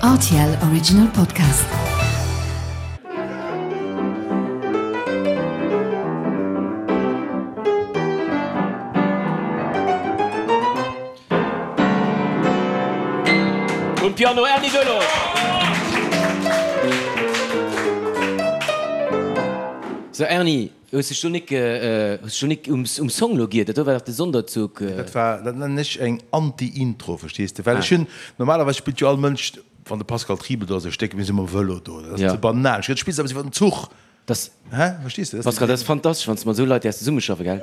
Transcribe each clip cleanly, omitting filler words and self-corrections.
Rtl Original Podcast. Um Piano Erny Delorge. Sou Erny, hues dech do nik, hues dech do nik um Song lo giert? Dat do war dach de Sonderzug. Dat war, dat nennen ech eng Anti-Intro, verstees de? Well ech hunn, normalerweis spillt jo all Mënsch, wann de Pascal Triebel do ass, e Stéck, mir si mam Vëlo do, dat ass ze banal. Ech spills awer iwwer den Zuch. Das, Hä? Verstees de? Pascal, dat ass fantastesch, wann s de mat esou Leit däers zesummeschaffen, gell?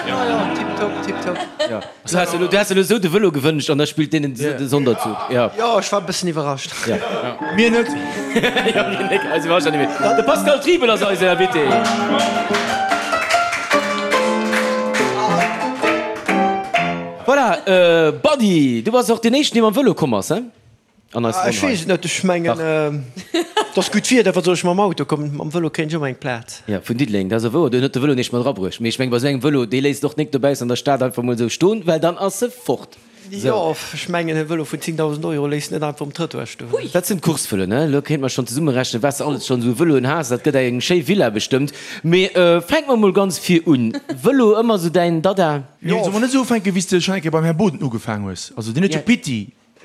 Jo, jo, tiptop, tiptop. Jo. Du has elo, du has elo esou de Vëlo gewënscht an da spillt deen den Sonderzug. Jo. Jo, ech war e bëssen iwwerrascht. Jo. Mir net. Jo, mir net. Eis iwwerrascht dat net méi. De Pascal Triebel ass eisen Invité. Voilà, Buddy, du bass och deen éischten, dee mam Vëlo komm ass, he? An eis Ronn hei. Ech weess et net, ech mengen et ass gutt Wieder, wat soll ech mam Auto kommen, mam Vëlo kréien ech ëmmer eng Plaz. Jo, vun Diddeleng, dat ass och wouer, do huet de Vëlo neescht mat erabruecht. Mee ech mengen, bei esou engem Vëlo, dee léisst och nik dobaussen an der Stad einfach mol esou stoen, well dann ass e fort. Sou. Jo, ech mengen e Vëlo vun 10.000 Euro léisst net einfach um Trëttoir stoen. Dat sinn d'Course-Vëloen, ne? Elo kéinte mer schonn zesummerechnen, wat s de alles schonn esou u Vëloen has. Dat gëtt eng schéi Villa bestëmmt. Mee fänke mer mol ganz vir un. Vëlo, ëmmer esou däin Dada? Nee, solle mer net esou ufänken, wéi s de schonn eng Kéier beim Här Boden ugefaang hues? Also deen huet jo Pitti.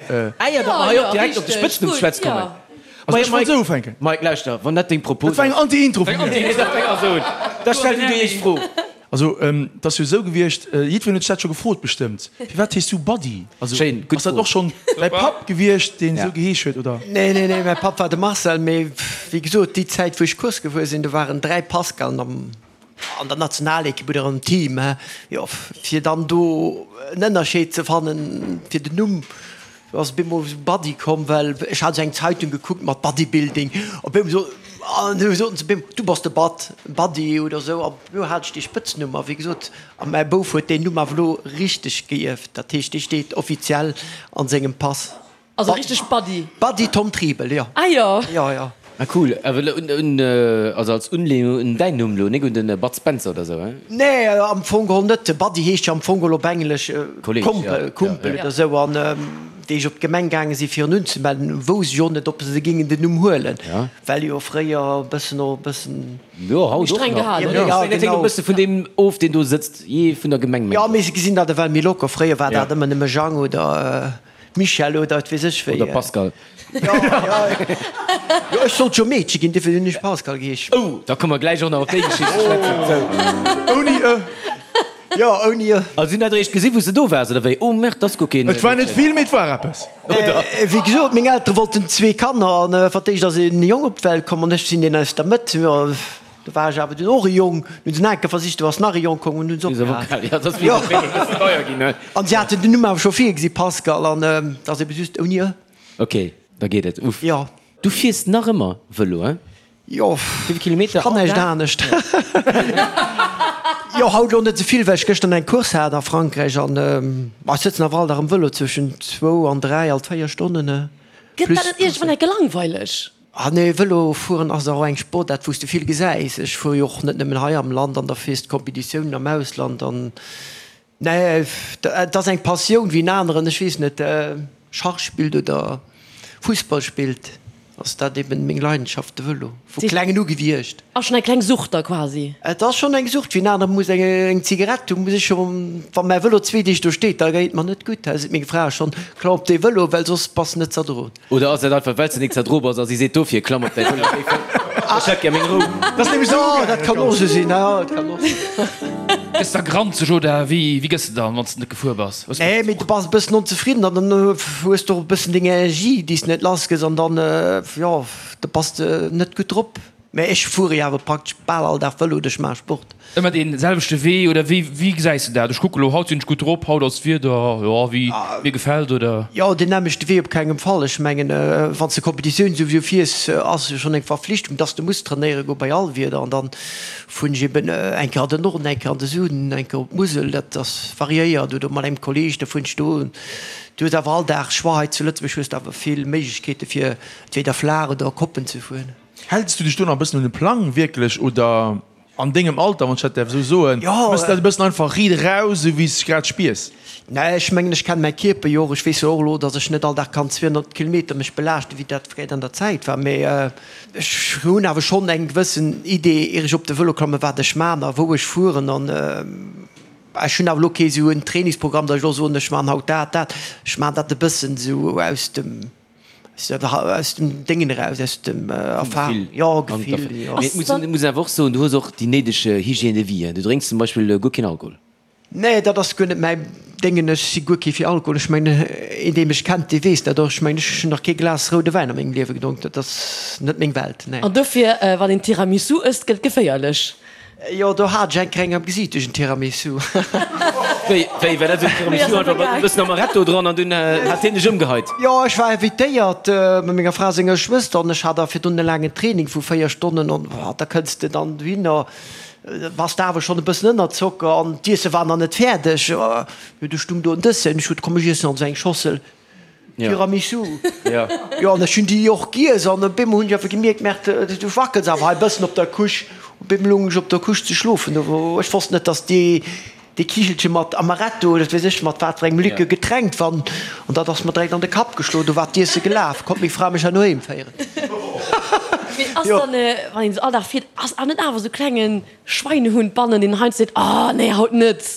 Eier datt mer hei och direkt op de Spëtznumm ze schwätze kommen. Also ech wollt esou ufänken. Mike, lauschter, wann dat deng Propos Dat war eng Anti-Intro vun mir. Dat fänk also un. Da stell du déi éischt Fro. Also, et ass jo esou gewiescht, jiddwereen huet sech dat scho gefrot bestëmmt, Firwat heeschs du Buddy? Also, Schéin, gutt ass dat Fro. och schonn däi Papp gewiescht, deen esou geheesch huet, oder? Nee, nee, nee, mäi Papp war de Marcel, mee wéi gesot, déi Zäit wou ech Course gefuer sinn, do waren 3 Pascalen am. An der Nationalekipp oder am Team, jo, fir dann do en Ënnerscheed ze fannen fir den Numm, do ass op eemol esou Buddy komm, well ech hat esou eng Zeitung gekuckt mat Bodybuilding, op eemol esou, an du soten se op eemol, du bass de Bud, Buddy oder esou, an do hat ech dee Spëtznumm. A wéi gesot, a mäi Bouf huet deen Numm awer elo richteg geierft, dat heescht, dee steet offiziell an sengem Pass. Also richteg Buddy. Buddy Tom Triebel, jo. Ah jo. Jo, jo. Ah cool, awer elo un, un, also als Unlehnung un däin Numm elo, nik un den Bud Spencer oder sou, he? Nee, am Fong geholl net. Buddy heescht jo am Fong geholl op Englesch Kolleg, Kompel, ja. Kumpel Ja, oder sou. An wéi ech op d'Gemeng gaange si fir en unzemelden, wousst ech och net, ob se géingen den Numm huelen, Ja. well jo fréier e bëssen och e bëssen. Jo, haut och Streng nach. gehalen, Ja, oder? ja, Dat hänkt e genau. bësse vun deem of, deen do sëtzt, jee vun der Gemeng, Jo, mengen mee ech. se gesinn dat ewell méi locker. Fréier war Ja. dat ëmmer nëmme Jang oder. Michel oder et weess ech wéi. Oder Pascal. Jo, jo. Jo, ech sollt jo Meedche ginn, dofir hunn ech Pascal geheesch. Oh, da komme mer gläich och nach op déi Geschicht ze schwätzen. Sou. Ouni e. Jo, ouni e. Also si hunn dat eréischt gesinn, wou s de do waars, oder wéi? Oh merde, dat ass guer keen. Et war net vill, mee et war eppes. Oder? Wéi gesot, meng Eltere wollten zwee Kanner an fir d'éischt ass en Jong op d'Welt komm an ech sinn deen aus der Mëtt. Jo. Do war ech awer dunn och e Jong. Nun hunn se nach eng Kéier versicht, do ass nach e Jong komm an hunn se opgehal. An si haten den Numm awer scho virgesi, Pascal, an et ass ebe just ouni e. Ok, da geet et. Uff. Jo. Du fiers nach ëmmer Vëlo, hein? Jo, Wéi vill Kilometer ech kann all näischt Dag? anescht. Jo, haut elo net esou vill, well ech gëschter eng Course hat a Frankräich an ech sëtzen awer all Dag am Vëlo zwëschen zwou an 3, alt 4 Stonnen. Gëtt dat net iergendwann enke langweileg? Ah nee, Vëlo fueren ass och eng Sportaart wou s de vill gesäis. Ech fuere jo och net nëmmen hei am Land an da fiers de Competitiounen am Ausland an nee, et ass eng Passioun wéi en aneren, ech weess net, Schach spillt oder Fussball spillt, ass dat eben meng Leidenschaft, de Vëlo, vu klengen u gewiescht. Ass schonn eng kleng Sucht da quasi? Et ass schonn eng Sucht, wéi en anere muss eng Zigarett hunn, muss ech scho, wa mäi Vëlo zwee Deeg do steet, da geet et mer net gutt, da seet meng Fra schonn, klamm op dee Vëlo, well soss bass net z'erdroen. Oder ass dat einfach wells de nik zerdro bass a si seet dofir klamm op däi Vëlo ech hätt gär meng Rou. Dat ass nämlech esou Jo, dat kann och esou sinn, jo, dat kann och sinn. Gëss da granzeg oder wéi wéi gëss de dann wanns de net gefuer bass? Nee, mee du bass e bëssen onzefridden an dann hues de och e bëssen deng Energie déi s de net lass gëss an dann, jo, da bass de net gutt drop. Mä ech fuere jo awer praktesch bal all Dag Vëlo oder ech maache Sport. Ëmmer dee selwechte Wee oder wéi wéi gesäis de dat? Ech kucke lo, haut sinn ech gutt drop, haut ass d'Wieder, jo, wéi mir gefält, oder? Jo, deen nämmlechte Wee op kengem Fall. Ech mengen, wann s de Competitioun souwisou fiers, ass jo schonn eng Verflichtung, dass de muss trainéiere goe bei all Wieder. An dann fueren ech eben eng Kéier an den Norden, eng Kéier an de Süden, eng Kéier op d'Musel, dat ass variéiert, oder mat engem Kolleeg, da fueren ech do. Du hues awer all Dag Choix. Hei zu Lëtzebuerg hues de awer vill Méiglechkeete fir entweder flaach oder Koppen ze fueren. Häls du dech do nach e bëssen un de Plang wierklech oder an dengem Alter, wann ech dat däerf esou soen, méchs de dat e bëssen einfach riit eraus, esou wéi s de grad spiers? Nee, ech mengen, ech kennen mäi Kierper jo och. Ech weess jo och elo, datt ech net all Dag kann 200 Kilometer mech belaaschten, wéi dat fréier an der Zäit war. Mee ech hunn awer schonn eng gewëssen Idee, ier ech op de Vëlo klammen, wat ech man a wou ech fueren. An ech hunn awer elo kee sou en Trainingsprogramm, datt ech elo soen, ech man haut dat, dat. Ech man dat e bëssen esou aus dem, aus dem Déngen eraus, aus dem Erfahrung, jo, Gefill, jo. Mee et muss een awer och soen, du hues och déi néideg Hygiène de vie. Du drénks zum Beispill guer keen Alkohol. Nee, dat ass guer net mäi Déngen. Ech si guer kee fir Alkohol. Ech mengen, een dee mech kennt, dee weess dat och. Ech mengen, ech hunn nach kee Glas roude Wäin a mengem Liewe gedronk. Dat ass net meng Welt, nee. An dofir, wann een Tiramisu ësst, gëtt et geféierlech. Jo, do hat ech eng Kéier eng am Gesiit duerch en Tiramisu. Wéi, wéi war dat? Esou en Tiramisu einfach mat e bëssen Amaretto dran an dunn hat hien dech ëmgeheit? Jo, ech war invitéiert mat menger Fra senger Schwëster an ech hat da virdrun e laangen Training vu 4 Stonnen an da kënns de dann dohinner. Bass de awer schonn e bëssen ënner Zocker an d'Iesse war nach net fäerdeg. Jo, du stung do en Dessert an ech huet, komm ech iessen also eng Schossel Tiramisu. Jo, an ech hunn déi och giess an op eemol hunn ech awer gemierkt, Merde, du wackels awer hei e bëssen op der Couche. Op eemol lung ech op der Couche ze schlofen. Ech wosst net, dass déi dee Kichelche mat Amaretto oder wat weess ech mat wat fir engem Likör getränkt wann, an dat ass mer direkt an de Kapp geschloen, do war d'Iesse gelaf, konnt meng Fra mech herno heem féieren. Mee ass dann, wann een esou all Dag fiert, ass awer net awer esou klengen Schweinehund bannen, deen heiansdo seet, oh nee, haut net?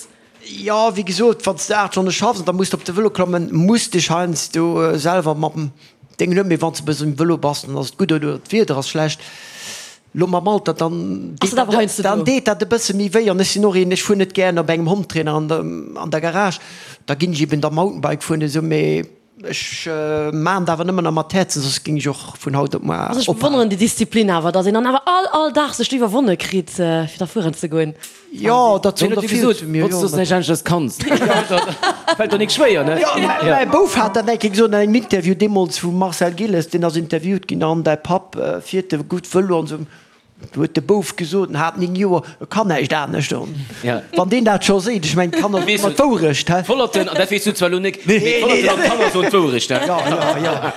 Jo, wéi gesot, wann s de 8 Stonne schaffs an da muss de op de Vëlo klammen, muss dech heiansdo selwer mam Déngen huelen, mee wann s de e bëssen um Vëlo bass, dann ass et gutt, oder d'Wieder ass schlecht. Lo mam Alter, dann Ass dat awer heiansdo dann do? deet dat e bësse méi wéi. An ech sinn och een, ech fuer net gären op engem Hometrainer an der an der Garage, da ginn ech eben da Mountainbike fueren esou, mee ech maan et awer nëmmen nach mat Häerzen, soss géing ech och vun haut op muar Also ech ophalen. bewonneren déi Disziplin awer, dass een dann awer all all Dag sech do iwwerwonne kritt fir da fueren ze goen. Jo, dat Wien soen huet der dir vill gesot, zu mir, wosst jo. dass du näischt aneschters kanns? Fält der nik schwéier, ne? Jo, mäi Bouf hat dat eng Kéier gesot an engem Interview, deemools vum Marcel Gilles, deen ass interviewt ginn, an däi Papp fiert e gutt Vëlo an esou. Du huet de Bouf gesot, en hat 9 Joer, e kann näischt anescht. An wann deen dat scho seet, ech mengen, d'Kanner soen ëmmer d'Wourecht, hä? D'Vollerten, an dat weess du zwar elo nik, mee d'Vollerten an d'Kanner soen d'Wourecht, hä? Jo, jo, jo.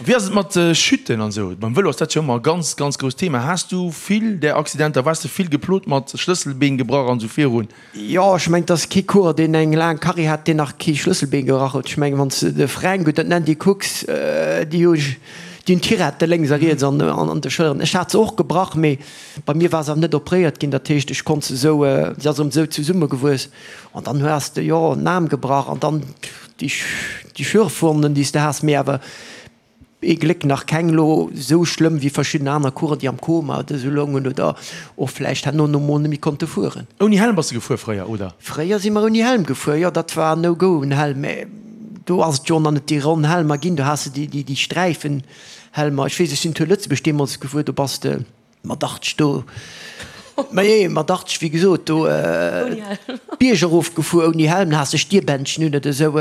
Wéi ass et mat Chuten an esou? Beim Vëlo ass dat jo ëmmer e ganz, ganz grousst Thema. Has du vill där Accidenter? Waars de vill geplot mat Schlësselbeen gebrach an esou virun? Jo, ech mengen, et ass kee Coureur, deen eng laang Carrière hat, deen nach kee Schlësselbeen gebrach huet. Ech mengen, wann s de de Fränk oder d'Nandy kucks, déi hu déi hunn Tirette lénks a riets an an de Schëlleren. Ech hat se och gebrach, mee bei mir war se awer net opréiert ginn. Dat heescht, ech konnt se esou, se ass erëm esou zesummegewuess. An dann has de, jo, en Aarm gebrach an dann déi Schürfwonnen, déi s de has, mee awer ee Gléck nach keng elo esou schlëmm wéi verschidden aner Coureur, déi am Koma oder esou loungen oder och vläicht herno no mol net méi konnte fueren. Ouni Helm bass de gefuer fréier, oder? Fréier si mer ouni Helm gefuer, jo, dat war no go en Helm, mä do ass et jo nach net déi ronn Helmer ginn, do has de déi Sträifenhelmer. Ech weess, ech sinn Tour Lëtzebuerg deemools gefuer, do bass de. Mat 80 do, ma jee, mat 80, wéi gesot, do d'Bierg erof gefuer ouni Helm, da has de Stierbändchen un oder esou.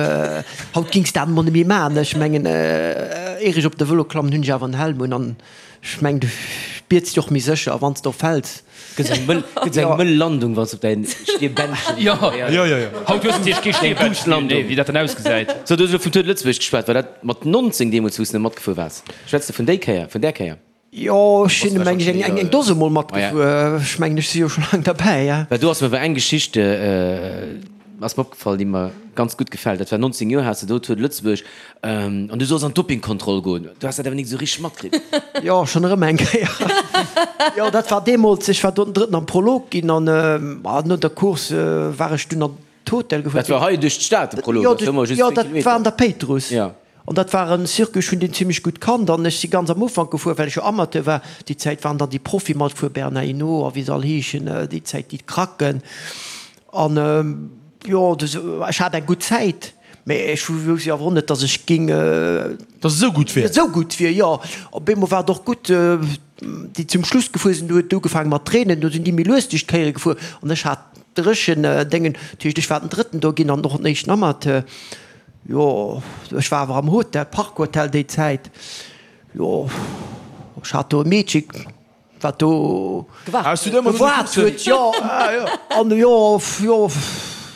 Haut gings dat emol net méi man. Ech mengen, ier ech op de Vëlo klammen, hunn ech awer en Helm un an ech mengen, du spiers dech och méi sécher, a wann s de och fäls. Gëtt eng mëll, gëtt eng mëll Landung, wann s de op däin Stierbändchen. Jo, jo, jo. Haut hues de natierlech kee Stierbändchen méi, wéi dat dann ausgesäit. So, du hues elo vum Tour de Lëtzebuerg geschwat. War dat mat 19 deemools, wou s de matgefuer waars? Schwätz de vun déi Kéier, vun där Kéier? Jo, ech sinn meng ech eng eng Dose mol matgefuer. Ech mengen, ech si jo scho laang derbäi, ja. Well do ass mer awer eng Geschicht ass mer opgefall, déi mer ganz gutt gefält. Dat war 19 Joer has de do Tour de Lëtzebuerg an du solls an d'Dopingkontroll goen. Du has dat awer nik esou richteg matkritt. Jo, schonn erëm eng Kéier. Jo, dat war deemools, ech war do den Drëtten am Prolog ginn an no der Course war ech dunn an d'Hotel gefuer. Dat war hei duerch d'Stad, de Prolog? Jo, jo, dat war an der Péitruss. An dat war en Circuit, ech hunn deen zimlech gutt kannt an ech si ganz am Ufank gefuer, well ech jo Amateur war. Déi Zäit waren dann déi Profie matgefuer, Bernard Hinault a wéi se all heeschen, déi Zäit déi Kracken. An jo, ech hat eng gutt Zäit, mä ech wousst jo awer och net, datt ech géing. Datt et esou gutt wier. Esou gutt wier, jo. Op eemol war et och gutt, déi zum Schluss gefuer sinn, do huet et ugefaange mat reenen, do sinn déi méi lues duerch d'Kéiere gefuer an ech hat dréchen Déngen, dat heescht, ech war den Drëtten do ginn an och den éischten Amateur. Jo, ech war awer am Hotel, Park Hotel déi Zäit. Jo, ech hat do e Meedche wat do Gewaart huet. Jo, an jo, jo.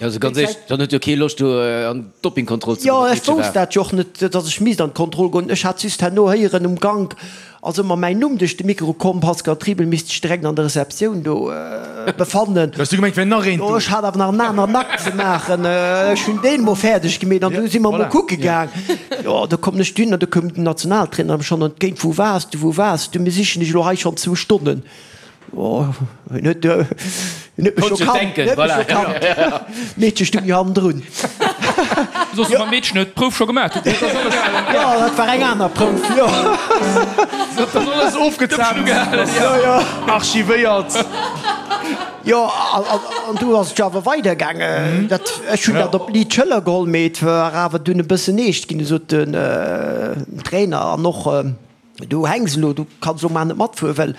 Also ganz éierlech, dann huet jo kee Loscht do an d'Dopingkontroll ze Jo, goen. ech wousst dat jo och net, datt ech misst an d'Kontroll goen. Ech hat just herno héieren um Gank, ass ëmmer mäin Numm duerch de Mikro komm, Pascal Triebel misst sech direkt an der Receptioun do befannen. Du has du gemengt, wär nach een do? Jo, ech hat awer nach en aneren Akt ze maachen. Ech hunn deen emol fäerdeg gemeet an du si mer emol kucke gaang. Jo, do kommen ech dunn an do koum den Nationaltrainer mer schonn entgéint, Wou waars du, wou waars du? Mir sichen dech elo hei schonn zwou Stonnen. Oh, en huet, en huet mech scho kannt, en huet mech scho kannt. D'Meedche stung jo hannendrun. Soss mam Meedchen huet d'Prouf scho gemaach. Jo, dat war eng aner Prouf, jo. Dat ass alles ofgezaapt, archivéiert. Jo, an du ass et jo awer weidergaangen. Dat, ech hunn dat op d'liit Schëller geholl, mee et war awer dunn e bëssen eescht ginn. Du sot den Trainer an och. Du hänks elo, du kanns elo mar net matfueren, well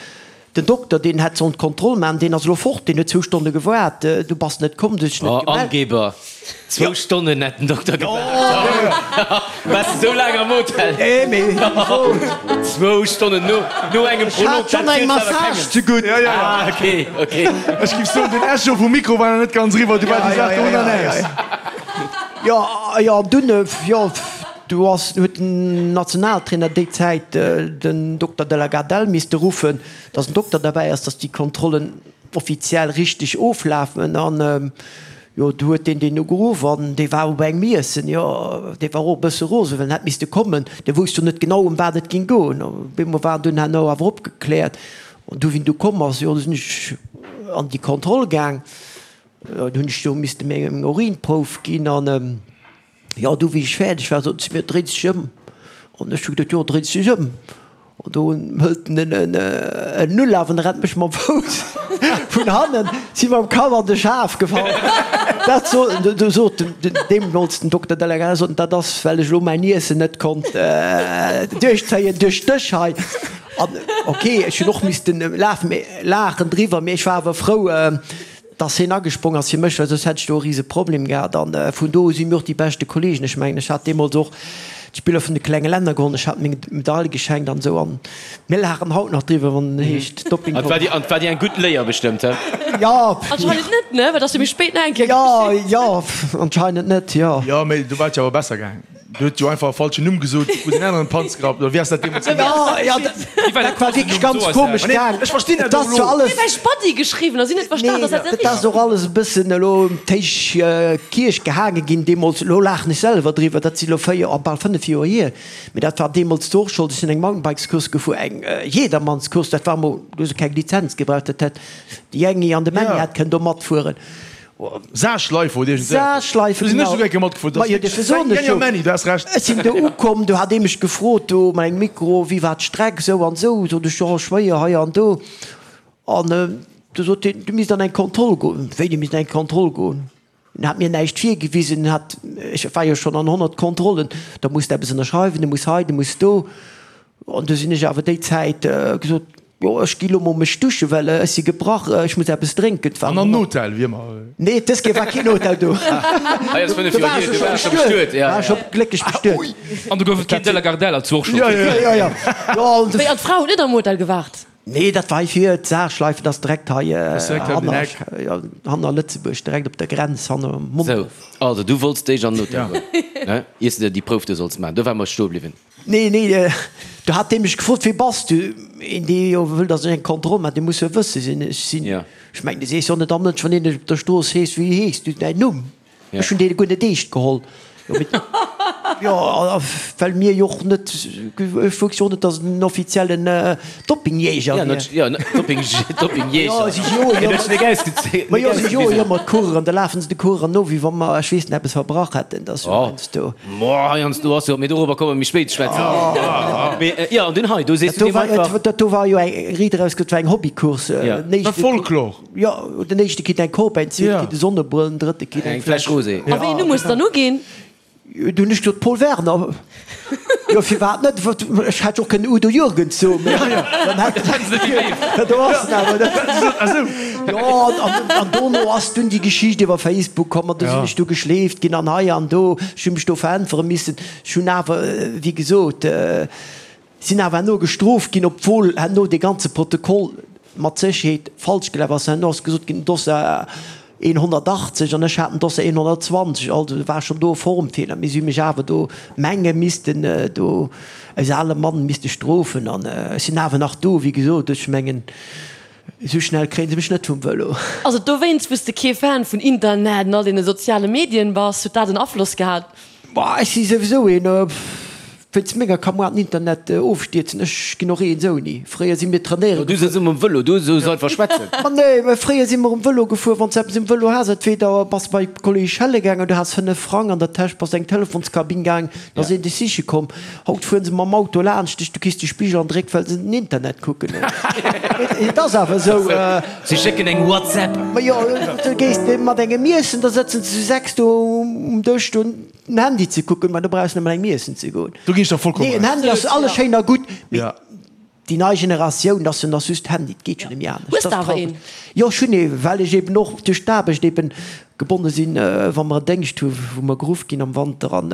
den Dokter, deen hätt sollen d'Kontroll maachen, deen ass elo fort, deen huet zwou Stonne gewaart, du bass net komm, du hues dech net Oh, gemellt. Angeber! Zwou Stonnen hätt den Dokter gewaart. Waars de sou laang am Hotel? Nee, mee Zwou Stonnen no, no engem ech hat Prolog, schonn dat eng zielt awer Massage kengem. zegutt. Ja, ja, ja. Ah, okay, okay. Ech giff soen, den Echo vum Mikro war nach net ganz eriwwer, du war déi Saach do ënnernees. Jo, jo, an dunn, jo. Du ass, huet den Nationaltrainer déi Zäit den Dokter de la Gardelle misste ruffen, datt en Dokter derbäi ass, datt déi Kontrollen offiziell richteg oflafen. An jo, du huet deen deen ugeruff an dee war op engem Iessen. Jo, dee war och e bësse rosen, well en hätt misste kommen. Dee wousst jo net genau, ëm wat et géing goen. Op eemol war en dunn herno awer opgekläert. An du, wéi en du komm ass, jo, du sinn ech an déi Kontroll gaang. Jo, du hunn ech do misste meng Urinprouf ginn an. Jo, du, wéi ech fäerdeg war, sot se mir, Dréi dech ëm. An ech hu geduet, Jo, dréi dech ëm. An do hëlt en en Ulaf an rennt mech mam Fouss vun hannen, si mam Kapp an de Schaf gefall. Dat sot, du sot den deemools den Dokter Delegat, sot en, dat ass, well ech elo mäin Iessen net konnt duerchzéien duerch dech hei. An ok, ech hunn och missten lafen, mee laachen driwwer, mee ech war awer frou, Dass hien agesprong ass fir mech, well soss hätt ech do e rise Problem gehat. An vun do u si mir och déi beschte Kollegen. Ech mengen, ech hat deemools och d'Spiller vun de klenge Länner gewonnen, ech hat meng Medail geschenkt an esou. An mir laachen haut nach driwwer, wann et heescht Dopping. An et war dir eng gutt Léier bestëmmt, he? Jo. Anscheinend net, ne? Well et ass jo méi spéit nach eng Kéier geschitt. Jo, jo, anscheinend net, jo. Jo, mee do war et jo awer besser gaangen. Du huet jo einfach e falschen Numm gesot, wou den aneren Panz gerappt, oder wéi ass dat deemools Ja, ja, dat war wierklech ganz komesch gaang. Ech verstinn dat Et ass och zwar elo. alles. Mir hu Spatti geschriwwen a si net verstan, Nee, dass dat net dat ass och alles e bëssen elo ëm d'héich Kierch gehaange ginn deemools. Elo laachen ech selwer driwwer, dat si elo 4, oh, bal 5 Joer hier. Mee dat war deemools du och Schold. Ech sinn eng Mountainbikescourse gefuer, eng Jedermannscourse, dat war emol, du hues keng Lizenz gebraucht, dat hätt de Jängi an de Männi hätt kënnen do matfueren. Saarschleife oder iergend esou eppes. Saarschleife, Do sinn ech genau. souguer eng Kéier matgefuer. Ma jo, dofir soen ech jo. Männi, du has Recht. Ech sinn do ukomm, do hat ee mech gefrot do mat engem Mikro, wéi war d'Streck, esou an esou. Sot ech, jo, schwéier hei an do. An du sot hien, du misst an eng Kontroll goen. Wéi, du misst an eng Kontroll goen? En hat mir näischt virgewisen, en hat, ech war jo schonn an 100 Kontrollen, da muss de eppes ënnerschreiwen, du muss hei, du muss do. An du sinn ech awer déi Zäit gesot, Jo, ech gi lo mol mech duschen, well ech si gebrach, ech muss eppes drénken. Et war An an Hotel, wéi ëmmer. Nee, dës Kéier war keen Hotel do. Hei ass 5 Do Joer war hier, ech du scho waars scho bestuet, bestuet, ja. war ech scho glécklech bestuet. An do gouf et keen De la Gardelle als Workshop. Ja, ja, Ja, ja. Jo, an Wéi, an d'Fra huet net am Hotel gewaart? Nee, dat war hei vir d'Saarschleife, dat ass direkt hei ass direkt hei op den hanner, Eck. ja, hanner Lëtzebuerg, direkt op der Grenz, hanner Sou, Mondorf. also du wollts déich an den Hotel goen, ne, iers de der déi Prouf do solls maachen. Do ware mer stoe bliwwen. Nee, nee, do hat dee mech gefrot, Wie bass du? Een, dee jo wëll, datt ech eng Kontroll maachen, dee muss jo wësse wien ech sinn. Ech mengen, du sees jo net am Mënsch, wann een dech op der Strooss heescht, Wéi heeschs du, däin Numm? Ech hunn dee guer net eescht geholl. Jo, well mir jo och net, ech wousst jo och net, datt et en offiziellen Doppingjäger wier. Jo, Doppingjäger. Ma jo, si joe jo ëmmer d'Coureuren, da lafen se de Coureuren no, wéi wa mer, ech weess net, eppes verbrach hätten. Dat ass jo heiansdo. Moah, heiansdo ass jo, mee dorobber komme mer méi spéit ze schwätzen. Mee jo, an dunn hei, do sees du deem einfach. Dat do war jo eng, riit eraus, dat war eng Hobbycourse. Ja. Dat war Folklor. Jo, den éischte kritt eng Coupe, den zweete kritt e Sonnebrëll, den drëtte kritt eng Eng Fläsch Rosé. A wéi een Numm hues de dann uginn? Du hunn ech gesot, Paul Werner. Jo, firwat net? Ech hätt jo och kënnen Udo Jürgens soen, mee dann hätt dat do ass en awer net. Jo, an dono ass dunn déi Geschicht iwwer Facebook komm an du sinn ech du geschleeft ginn an hei an do. Ech hu mech do veräntwere missen. Ech hunn awer, wéi gesot, sinn awer herno gestrooft ginn, obwuel herno dee ganze Protokoll mat Sécherheet falsch gelaf ass. Herno ass gesot ginn, den Dossier. 1,80 an ech hat en Dossier 1,20, also war schonn do e Formfeeler, mee si hu mech awer do menge missten do eis ale Mann misste strofen an ech sinn awer nach do, wéi gesot, ech mengen esou schnell kréie se mech net vum Vëlo. Ass et dowéinst, wou s de kee Fan vun Internet an all deene soziale Medien bass? Huet dat en Afloss gehat? Boah, ech si souwisou een, wéinst menger ka moar den Internet ofstierzen. Ech ginn och eens ouni. Fréier si mir trainéiere Du sëtz um Vëlo, du soos einfach schwätzen. Ma nee, mä fréier si mer um Vëlo gefuer, wann s de eppes um Vëlo has, entweder bass de bei Kolleg Schelle gaangen, du has 5 Frang an der Täsch, bass eng Telefonskabinn gaang, da ass een dech siche komm. Haut fueren se mam Auto laanscht dech, du kriss de Spigel an de Réck, well se den Internet kucken. Et ass awer esou. Si schécken eng WhatsApp. Ma jo, du gees mat engem iessen, da sëtzen se zu 6 do um Dësch do den Handy ze kucken. Ma do brauchs net mat engem iessen ze goen. Do ginn ech der vollkommen Nee, en Recht. Handy ass alles schéin a gutt, mee déi nei Generatioun, dat ass jo nach just Handy, et geet jo net méi anescht. Hues de awer een? Jo, ech hunn ee, well ech eben och duerch d'Aarbecht eben gebonne sinn, wa mer en Déngscht hu wou mer geruff ginn am Wanter an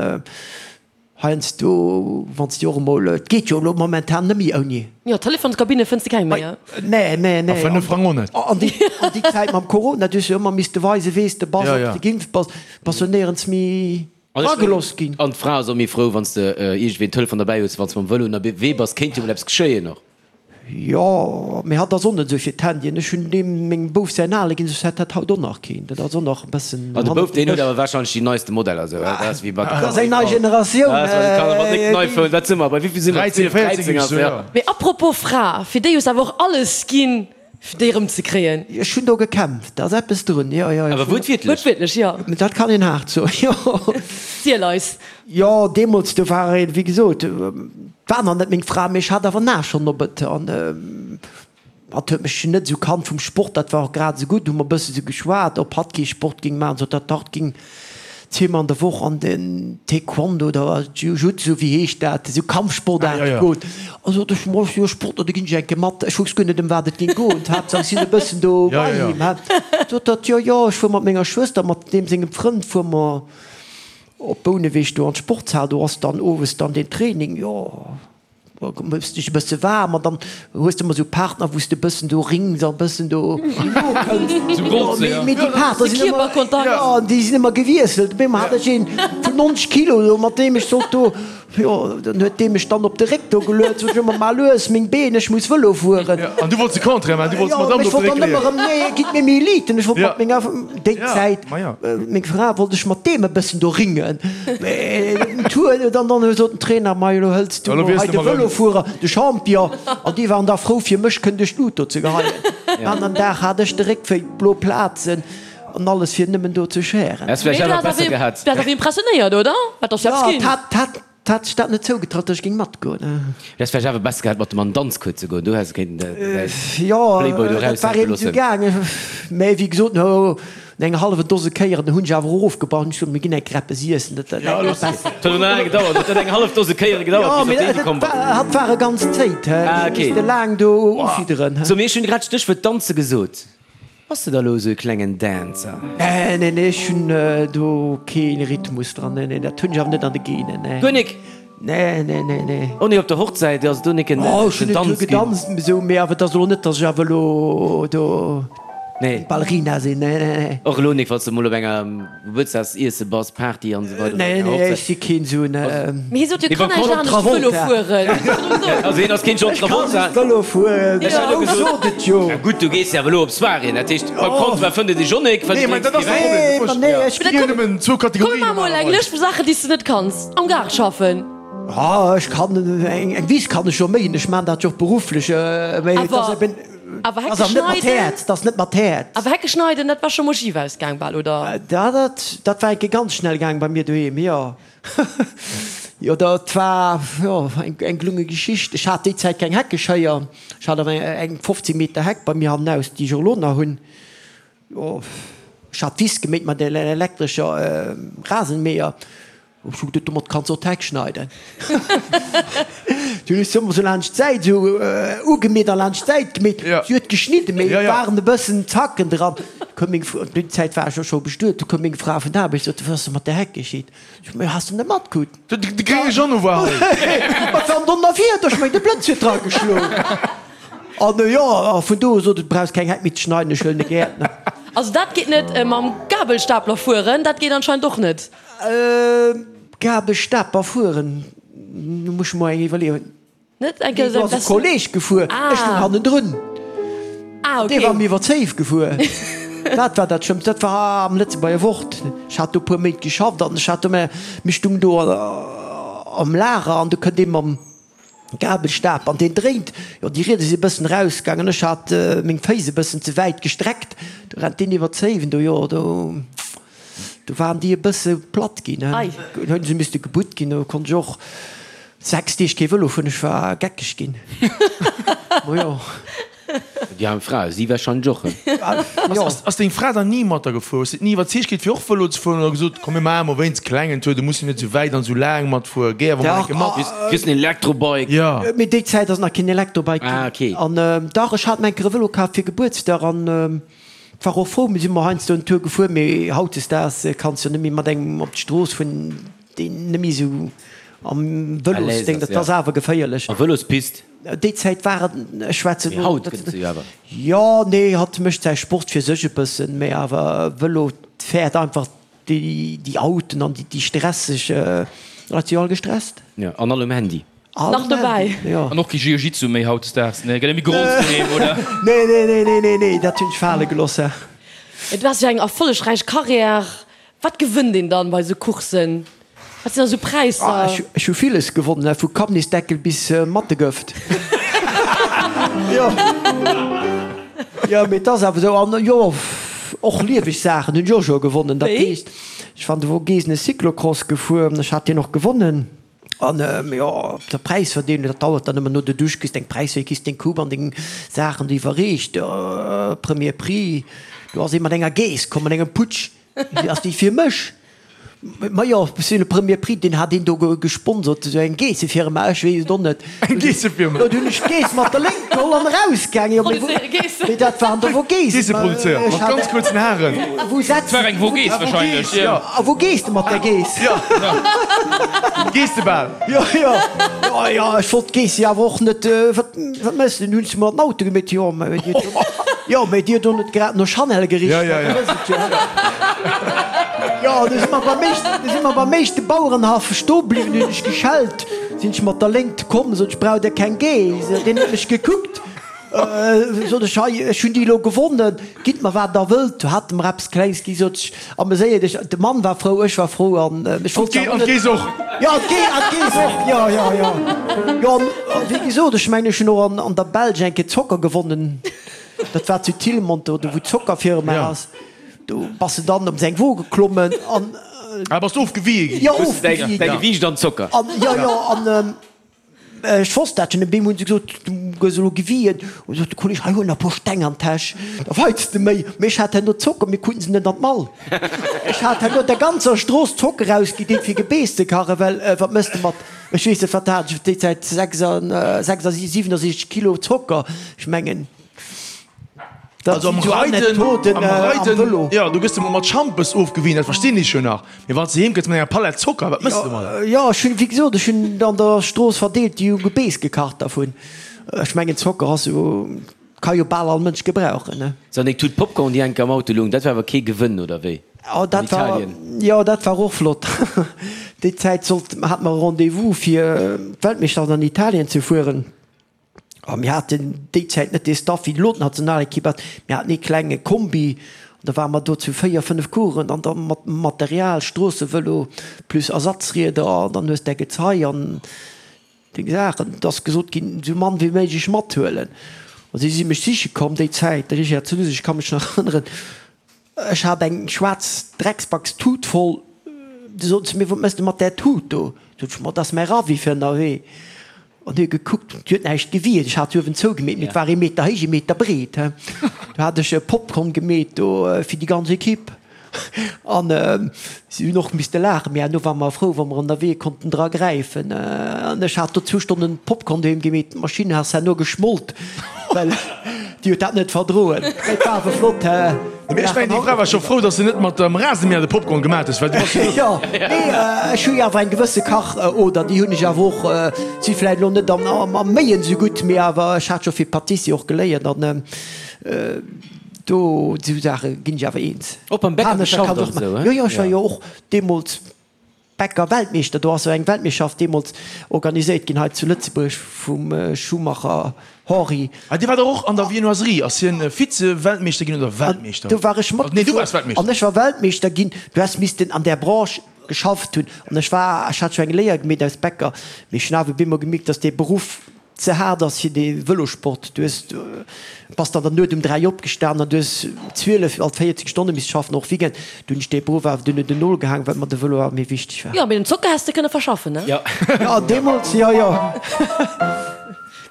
Heiansdo, wann s de och emol, et geet jo elo momentan net méi ouni. Jo, Telefonskabinne fënns de keng méi, he? Nee, nee, nee. A 5 Frang och net. An déi, an déi Zäit mam Corona, du hues jo ëmmer misste weisen, wees de bass, ob de geimpft bass, bass jo néierens méi eragelooss ginn. An d'Fra ass och méi frou, wann s de iergendwéi en Telefon derbäi hues, wann s mam Vëlo ënnerwee bass, kéint jo mol eppes geschéien och. Jo, mee hatt ass och net esou fir d'Handyen. Ech hunn deem mengem Bouf säin ale ginn, soss hätt dat haut och nach keen. Dat ass och nach e bëssen Ah, de Bouf, deen huet awer warscheinlech déi neiste Modeller esou, dat ass wéi bei de Dat ass eng nei Generatioun. Dat ass bei de Kanner mat décken iPhone. Wat si mer, bei wéivill si mer? 13, 14 13 ass, ja. Mee apropos Fra, fir déi hues awer och alles ginn, fir déi erëm ze kréien. Ech hunn do gekämpft, da ass eppes drun, jo, jo. Awer wuertwiertlech? Wuertwiertlech, jo. Dat kann een haart soen, jo. Ziel eis. Jo, deemools, do war een, wéi gesot, war nach net meng Fra, mee ech hat awer nach schonn op et. An hatt huet mech net esou kannt vum Sport, dat war och grad esou gutt. Hu mer e bësse sou geschwat, ob hatt kee Sport géing maachen, sot hatt, dach, et géing zweemol an der Woch an den Taekwondo oder Jiu-Jitsu, wéi heescht dat, esou Kampfsportaarte goen. A sot ech, ma jo, Sport, do ginn ech eng Kéier mat. Ech wousst guer net, ëm wat et géing goen, d'Haaptsaach ech sinn e bëssen do bei him. Sot hatt, jo, jo, ech fuer mat menger Schwëster, mat deem sengem Frënd fuere mer Op Bouneweg do an d'Sportshal, do ass dann owes dann deen Training, jo, da méchs dech e bësse waarm an dann hues de ëmmer esou Partner, wou s de e bëssen do rings a bëssen do nokënns. Mee déi Partner sinn ëmmer, jo, déi sinn ëmmer gewiesselt. Op eemol hat ech een vun 90 Kilo do, mat deem ech sollt do, jo, dann huet dee mech dann op de Réck do geluet, sot ech ëmmer, Mar lues, meng Been, ech muss Vëlo fueren. An du wollts de Contraire maachen, du wollts d'Madame do op de Réck leeën. Ech wollt dann ëmmer erëm, nee, gitt mir méi Eliten, ech wollt mat menger, déi Zäit, Meng Fra wollt ech mat deem e bëssen do ringen, mee den Tour, dann dann sot den Trainer, Mei elo hëls du mol hei de Vëlofuerer, de Champion. An déi waren da frou fir mech kënnen duerch d'Lut do ze geheien. An en Dag hat ech de Réck wéi blo Plazen an alles fir nëmmen do ze schären. Häss vläicht awer besser gehat. Dat ass impressionéiert, oder? Wat ass eppes ginn? Jo, dat Hat sech dat net zougetraut, datt ech géing matgoen. Du häss vläicht awer besser gehat, mat dem an den Danzcours ze goen. Do häss de kéinten däi Jo, Playboy do dat war eraushänke eben esou loossen. gaangen. Mä wéi gesot, no enger hallwer Dose Kéieren hunn ech awer och ofgebrach. Hunn ech gesot, mir ginn eng Kéier eppes iessen, dat dat ass besser. Et huet och nach laang gedauert. Et huet eng hallef Dose Kéiere gedauert, Jo, bis mee op déi dat komm bass. war, hat war e ganz Zéit, he. Ah, Ech okay. misste laang do ufidderen, he. So, mee ech hunn grad d'Stéchwuert Danze gesot. Bass de da lo esou e klengen Dancer? Nee, nee, nee, ech hunn do kee Rhythmus dran. Nee, nee, dat hunn ech awer net an de Genen, nee. Guer nik? Nee, nee, nee, nee. Och nik op der Hochzäit ass do nik en Oh, ech hunn Danz e puer ginn? gedanzt, esou, mee awer et ass elo net, datt ech awer elo do Nee. Ballerina sinn, nee, nee, nee. Och elo nik, wann s de mol op enger Gebuertsdagsiesse bass, Party an esou weider, Nee, enger nee, Hochzäit. ech si keen esou en. Mee hie sot jo, Mee kann beim eigentlich John anescht Travolta. Vëlo fueren. Also hien ass keen John Ech kann Travolta. just Vëlo fueren. Ech hat jo Wou gesot, sot et jo? Ja gutt, du gees jo awer elo op Soiréeën, dat heescht beim Comptoir fënnt et ee Jonnek, well Nee, du mä drénks dat ass kee de Wäin. Nee, Problem. ma nee, ech. Ech ginn nëmmen zwou Komm, Kategorien mir maache mol eng normalerweis. Lëscht vu Saachen, déi s de net kanns. Am Gaart schaffen. Ah, ech kann eng Wiss kann ech jo méien, ech maan dat jo och berufflech, mee et ass Awer, eben, awer ass Hecke awer net mat schneiden, Häerz, dat ass net mat Häerz. awer Hecke schneiden, dat war scho mol schif ausgaang bal, oder? Dat, dat, dat war eng Kéier ganz schnell gaang bei mir doheem, jo. Jo, dat war, jo, eng, eng gelunge Geschicht. Ech hat déi Zäit keng Heckeschéier, ech hat awer eng 15 Meter Heck bei mir hannenaus, déi ech och elo nach hunn. Jo, ech hat d'Wiss geméit mat der elektrescher Rasenmäher. Ech hu geduet, domat kanns och d'Heck schneiden. Du hunn ech se ëmmer sou laanscht d'Säit esou ugemeet a laanscht d'Säit gemeet. Si huet geschnidden, mee et waren e bëssen Zacken dran. Koum meng Fra, déi Zäit war ech jo scho bestuet, du koum meng Fra vun der Aarbecht, sot, Wat ass denn mat der Heck geschitt? Ech sot, Mee has de net matkritt? De grénge Jeannot war hei. Wat war denn Donnerwieder? Ech meng, de Blëtz huet drageschloen. An jo, a vun do u sot et, Brauchs keng Heck méi ze schneiden, ech huelen e Gäertner. Also dat geet net. Mam Gabelstapler fueren, dat geet anscheinend och net. Gabelstapler fueren, do muss ech mer eng iwwerleeën. Net eng Kéier Do ass e Kolleg gefuer, ech stoung hannendrun. Ah, okay. Dee war mir iwwer d'Zéif gefuer. Dat war dat Schlëmmst. Dat war am Lëtzebuerger Wort. Ech hat do e puer Méint geschafft an ech hat do, mir stoungen do am Lager an do kënnt ee mam Gabelstap an deen dréint, jo déi Rieder si e bëssen erausgaangen, ech hat meng Féiss e bëssen ze wäit gestreckt, do rennt deen iwwer d'Zéiwen do, jo do do waren déi e bësse platt ginn, hunn se misste gebutt ginn, do konnt ech och 6 Deeg kee Vëlo fueren, ech war geckeg ginn, ma jo. Déi aarm Fra, si warscheinlech och. Ass deng Fra dann ni mat der gefuer? Hues de et ni iwwerzeegt kritt fir och Vëlo ze fueren oder gesot, komm mir maache mol wéinst klengen Tour, du muss jo net esou wäit an esou laang matfueren, géi awer mol eng Kéier mat. Kriss en Elektrobike. Jo. Mee déi Zäit ass nach keen Elektrobike ginn. Ah, okay. An dach, ech hat mer eng Kéier e Vëlo kaf fir Gebuertsdag an war och frou. Mir si mol heiansdo en Tour gefuer, mee hautdesdaags kanns jo net méi mat engem op d'Strooss fueren, deen net méi esou am Vëlosdéng, dat ass awer geféierlech. A Vëlospist? Déi Zäit war et, ech schwätzen Mee haut gëtt et se jo awer. Jo, nee, hatt mécht säi Sport fir sech e bëssen, mee awer Vëlo fäert einfach déi Autoen an déi stresseg Leit si jo all gestresst. Jo, an all um Handy. Nach dobäi. Jo. An och kee Jiu-Jitsu méi hautdesdaags, nee? Gëtt net méi gerollt doheem, oder? Nee, nee, nee, nee, nee, nee, dat hunn ech fale gelooss. Du has jo eng erfollegräich Karriär. Wat gewënnt een dann bei sou Coursen? Wat sinn da sou Präisser? Ech hu villes gewonnen, vu Kabnisdeckel bis Mattegëft. Jo, jo, mee et ass awer esou. An jo, och lieweg Saachen hunn ech och scho gewonnen. Dat heescht, ech war an de Vogesen e Cyclocross gefuer, ech hat deen och gewonnen. An jo, op der Präisverdeelung, dat dauert dann ëmmer no der Dusch, kriss deng Präisverdeelung, kriss deng Coupe an deng Saachen do iwwerreecht, Premier Prix. Do ass ee mat enger Geess komm, mat engem Putsch. Ass déi fir mech? Majo, c'est le premier prix, deen hat een do gesponsert, esou eng Geessefirma, ech weess et och net. Eng Geessefirma? Do hunn ech d'Geess mat der Léngt geholl an erausgaangen. Jo, mee dat waren der Vogesen. Geesse produzéiert, mat ganz kuerzen Haren. Wou setzt. Et war eng Vogese wahrscheinlech, jo. A wou gees de mat där Geess? Jo, Geessebal. Jo, jo, jo, jo, ech wollt d'Geess jo awer och net, wat, wat méchs de? Hunn se mer an den Auto gemeet, jo, mä dir hutt, jo, mä dir hutt och net grad no Chanel gericht, Ja, ja, ja. dat ass et jo. Jo, du si mer beim éischten, du si mer beim éischte Bauerenhaff stoe bliwwen, hunn ech geschellt, sinn ech mat der Léngt komm, sot ech, braucht der keng Geess? Deen huet mech gekuckt. Sot ech, hei, ech hunn déi elo gewonnen, gitt mer wat der wëllt. Du hat e mer eppes Klengs gi, sot ech, ameséier dech. De Mann war frou, ech war frou an ech wollt se awer net. An d'Geess och. Jo, an d'Geess och, jo, jo, jo. Jo, an wéi gesot, ech mengen, ech hunn och an der Belsch eng Kéier Zocker gewonnen. Dat war zu Tilmont, do wou d'Zockerfirma ass. Do bass de dann op seng Wo geklommen an. Ah, bass du ofgewië ginn? Jo, ofgewië ginn. Däi Gewiicht an Zocker. An, jo, jo, an. Ech wosst dat schon, op eemol hunn se gesot, du gëss elo gewien. Hu sot de Kolleg, hei huel nach e puer Steng an d'Täsch, da weits de méi. Mee ech hat herno Zocker, mir kruten se net an d'Mall. Ech hat herno der ganzer Strooss Zocker ausgedeelt fir Gebeess ze kachen, well wat mëss de mat, ech weess net, wat hat ech op déi Zäit, 67 Kilo Zocker, ech mengen. Also am Reiden, am Reiden, jo, du gëss emol mat Schampes ofgewien, dat verstinn ech jo nach, mee wann s de heem kënns mat enger Palett Zocker, wat mëss de domadder? Jo, ech hunn, wéi gesot, ech hunn an der Strooss verdeelt, déi hu Gebeess gekacht dervun. Ech mengen, Zocker ass jo, ka jo bal all Mënsch gebrauchen, ne? Sou, an deng Tut Popcorn, déi enke am Auto loung, dat war awer kee Gewënn, oder wéi? Oh, An dat war, Italien? jo, dat war och flott. Déi Zäit sollt, hate mer e Rendez-vous, fir d'Weltmeeschterschaft an Italien ze fueren. A mir haten déi Zäit net dee Staff wéi elo d'Nationalekipp hat. Mir haten ee klenge Kombi an da ware mer do zu 4, 5 Coureuren an da mat Material, Stroossevëlo plus Ersatzrieder an dann hues däi Gezei an deng Saachen. Et ass gesot ginn, esou mann wéi méiglech mathuelen. A si si mech siche komm déi Zäit, de Richard Zunus, ech ka mech nach erënneren, Ech hat eng schwaarz Drecksbackstut voll. Du sot se mir, Wat mëss de mat där Tut do? Sot ech, Ma, dat ass mäi Ravi fir ënnerwee. An huet gekuckt, déi huet näischt gewiert. Ech hat se uewen zougemeet, mee et war ee Meter héich, ee Meter breet. Du hat ech Popcorn gemeet do fir déi ganz Ekipp. An si hunn och misste laachen, mee herno ware mer frou, wa mer ënnerwee konnten dra gräifen. An ech hat do zwou Stonnen Popcorn doheem gemeet, d'Maschinn ass herno geschmolt, well déi huet dat net verdroen. Mee et war awer flott. Mee ech mengen, déi Fra war scho frou, dass de net mat dem Rasenmäher de Popcorn gemat hues, well du bass jo. Jo, mee ech hu jo awer eng gewësse Kach-Oder, déi hunn ech awer och. Si vläicht elo net am Méien esou gutt, mee awer ech hat scho fir Pâtissier och geléiert an. Do esou Saache ginn ech awer eens. Och beim Bäcker geschafft an esou, he? Jo, jo, ech war jo och deemools Bäcker Weltmeeschter. Do ass jo eng Weltmeeschterschaft deemools organiséiert ginn hei zu Lëtzebuerg vum Schumacher Henri. Ah, dee war dach och an der Viennoiserie. Ass hien Vize-Weltmeeschter ginn oder Weltmeeschter? Do war ech Nee, du waars matgefuer Weltmeeschter. an ech war Weltmeeschter ginn. Du häss missten an där Branche geschafft hunn an ech war, ech hat scho eng Léier gemeet als Bäcker, mee ech hunn awer bemol gemierkt, dass dee Beruff ze haart ass fir de Vëlosport. Du hues, bass dann der Nuet um 3 opgestan an du hues 12 alt 14 Stonne misst schaffen, och Weekend. Du hunn ech dee Beruff awer dunn un den Nol gehaang, well mer de Vëlo awer méi wichteg war. Jo, mee den Zocker häss de kënne verschaffen, ne? Jo. Jo, deemools, jo, jo.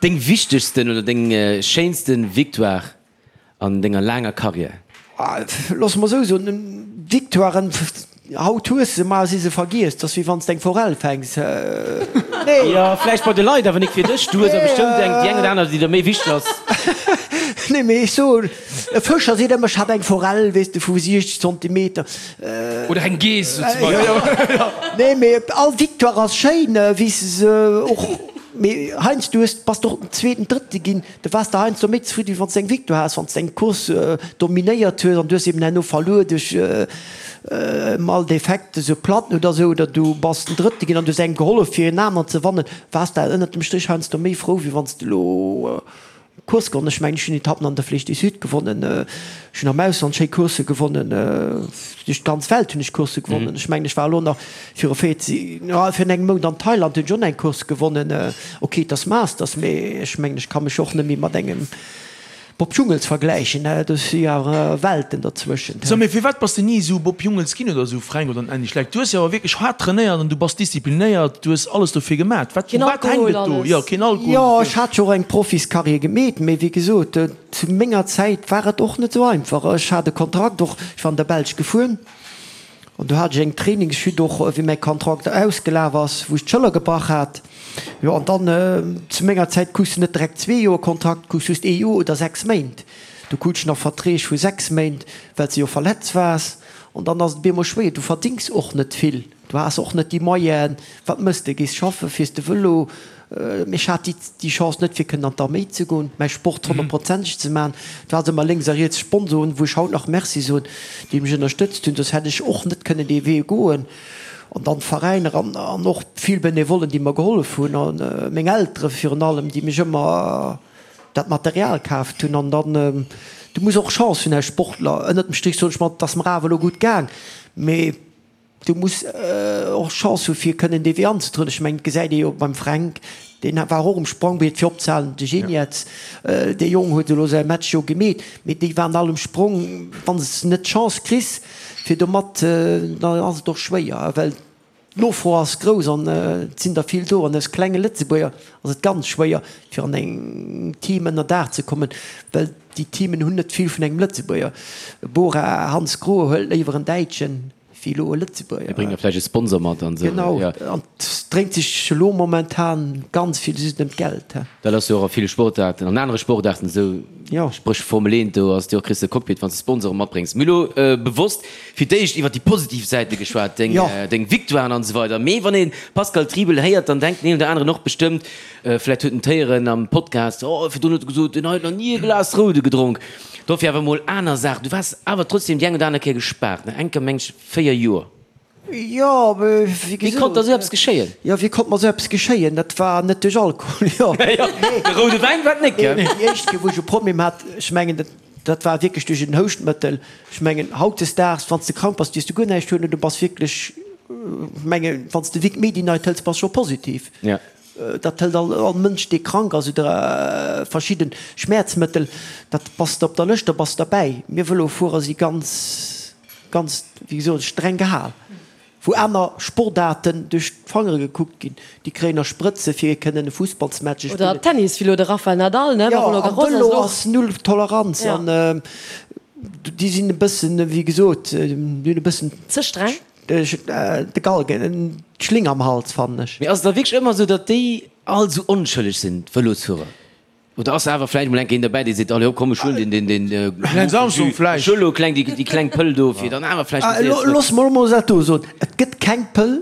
Deng wichtegsten oder deng schéinsten Victoire an denger laanger Carrière? Looss mer esou soen, Victoiren, haut hues se, mar si se vergiess. 't ass wéi wann s de eng Forell fänks. Nee. Jo, vläicht bei de Leit, awer nik fir dech. Du hues der bestëmmt eng, déi eng oder aner, déi der méi wichteg ass. Nee, mee ech soen, e Fëscher seet ëmmer, ech hat eng Forell, weess de, vu 60 Zentimeter. Oder eng Geess, sou zum Beispill. Nee, mee all Victoire ass schéin, wéi s de se och, mee heiansdo hues, bass de och den Zweeten, Drëtte ginn. Du waars der heiansdo méi zefridden, wéi wann s de eng Victoire has, wann s de eng Course dominéiert hues an du hues eben herno verluer duerch mal Defekt, esou Platten oder esou, oder du bass den Drëtte ginn an du hues engem gehollef fir en aneren ze wannen, waars de ënnert dem Strich heiansdo méi frou, wéi wann s de elo Course gewonnen. Ech mengen, ech hunn Etappen an der Flèche du Sud gewonnen, ech hunn am Ausland schéi Coursse gewonnen, duerch d'ganz Welt hunn ech Coursse gewonnen. Ech mengen, ech war elo nach viru 14, jo, virun engem Mount an Thailand, hunn ech och nach eng Course gewonnen. Ok, et ass Masters, mee ech mengen, ech ka mech och net méi mat engem Bob Jungels vergläichen, do si jo awer Welten derzwëschent. So, mee firwat bass de ni esou Bob Jungels ginn oder esou Fränk oder en Andy Schleck? Du hues jo awer wierklech haart trainéiert an du bass disziplinéiert, du hues alles dofir gemat. Wat, Keen u wat hänkt Alkohol, et do? alles. Jo, keen Alkohol Jo, dofir. ech hat jo och eng Profiscarrière gemeet, mee wéi gesot, zu menger Zäit war et och net esou einfach. Ech hat e Kontrakt och, ech war an der Belsch gefuer. An do hat ech eng Trainingschute och, wéi mäi Kontrakt ausgelaf ass, wou ech d'Schëller gebrach hat. Jo, an dann, zu menger Zäit krus de net direkt zwee Joer Kontrakt, krus just ee Joer oder sechs Méint. Du krut ech nach Verträg vu sechs Méint, well s de jo verletzt waars. An dann ass et op eemol schwéier, du verdéngs och net vill, du has och net déi Moyenen. Wat mëss de? Gees schaffe, fiers de Vëlo? Mee ech hat déi Chance net fir kënnen an d'Arméi ze goen, mäi Sport honnertprozenteg ze maachen. Et ware ëmmer lénks a riets Sponsoren, wou ech haut nach Merci soen, déi mech ënnerstëtzt hunn, soss hätt ech och net kënnen dee Wee goen. An dann d'Veräiner an och vill Benevollen, déi mer gehollef hunn a meng Eltere virun allem, déi mech ëmmer dat Material kaaft hunn. An dann, du muss och Chance hunn als Sportler. Ënnert dem Strich soen ech mer, et ass mer awer elo gutt gaang, mee Du muss och Chance hu fir kënnen dee Wee anzetrieden. Ech mengen, et gesäit ee jo beim Fränk, deen war och um Sprongbriet fir opzehalen, de Geniets, dee Jong huet elo säi Match jo gemeet, mee déi waren all um Sprong. Wann s de net d'Chance kriss fir do mat, dann ass et och schwéier, well d'Nofro ass grouss an et sinn der vill do. An aus klenge Lëtzebuerger ass et ganz schwéier fir an engem Team ënner Daach ze kommen, well déi Teamen hunn net vill vun engem Lëtzebuerger. Bora Hansgrohe huelt léiwer en Däitschen. Wéi elo e Lëtzebuerger. Mir bréngen da vläicht e Sponsor mat an esou. Genau, an et dréint sech elo momentan ganz vill just ëm d'Geld. Dat ass jo och a ville Sportaarten, an anere Sportaarten esou, spréch Formel 1, do ass et jo och, kriss de Cockpit, wann s de Sponsoren matbréngs. Mir hu elo bewosst fir d'éischt iwwer déi positiv Säite geschwat, deng, deng Victoiren an esou weider. Mee wann ee Pascal Triebel héiert, dann denkt den een oder aneren och bestëmmt, vläicht huet en d'héieren am Podcast, oh, virdrun huet e gesot, deen hei huet nach ni e Glas Roude gedronk. Dofir awer mol aner Saachen. Du waars awer trotzdem déi eng oder aner Kéier gespaart, ne? Eng Kéier meng ech 4 Joer. Jo, mee wéi gesot. Wéi konnt der esou eppes geschéien? Jo, wéi konnt mer esou eppes geschéien? Dat war net duerch Alkohol, jo. De roude Wäin war et net, gell? Nee, déi éischt Kéier, wou ech e Problem hat, ech mengen, dat, dat war wierklech duerch en Houschtmëttel. Ech mengen, hautdesdaags, wann s de krank bass, dierfs de guer näischt huelen, du bass wierklech, ech mengen, wann s de Vic Medi-Night hëls, bass scho positiv. Ja. Dat hëlt all all Mënsch, dee krank ass oder verschidde Schmäerzmëttel, dat bass de op der Lëscht, da bass de derbäi. Mir Vëlofuerer si ganz, ganz, wéi gesot, streng gehal. Wou aner Sportaarten duerch d'Fangere gekuckt ginn, déi kréien nach Sprëtze fir kënnen e Fussballsmatch ze Oder spillen. Tennis, wéi elo de Rafael Nadal, ne, Jo, Roland am Garros ass Vëlo elo. ass null Toleranz Ja. an déi sinn e bëssen, wéi gesot, déi hunn e bëssen. Ze streng? De Galgen, d'Schling am Hals, fannen ech. Mee ass et da wierklech ëmmer esou, datt déi all esou onschëlleg sinn, d'Vëlosfuerer? Oder ass awer vläicht emol eng Kéier een derbäi, dee seet, allez hopp, komm ech huelen deen, deen, deen Lance Armstrong vläicht. Ech huele lo kleng, déi, déi kleng Pëll do, fir dann awer vläicht méi séier zrëck. Looss mer emol dat do soen, Et gëtt keng Pëll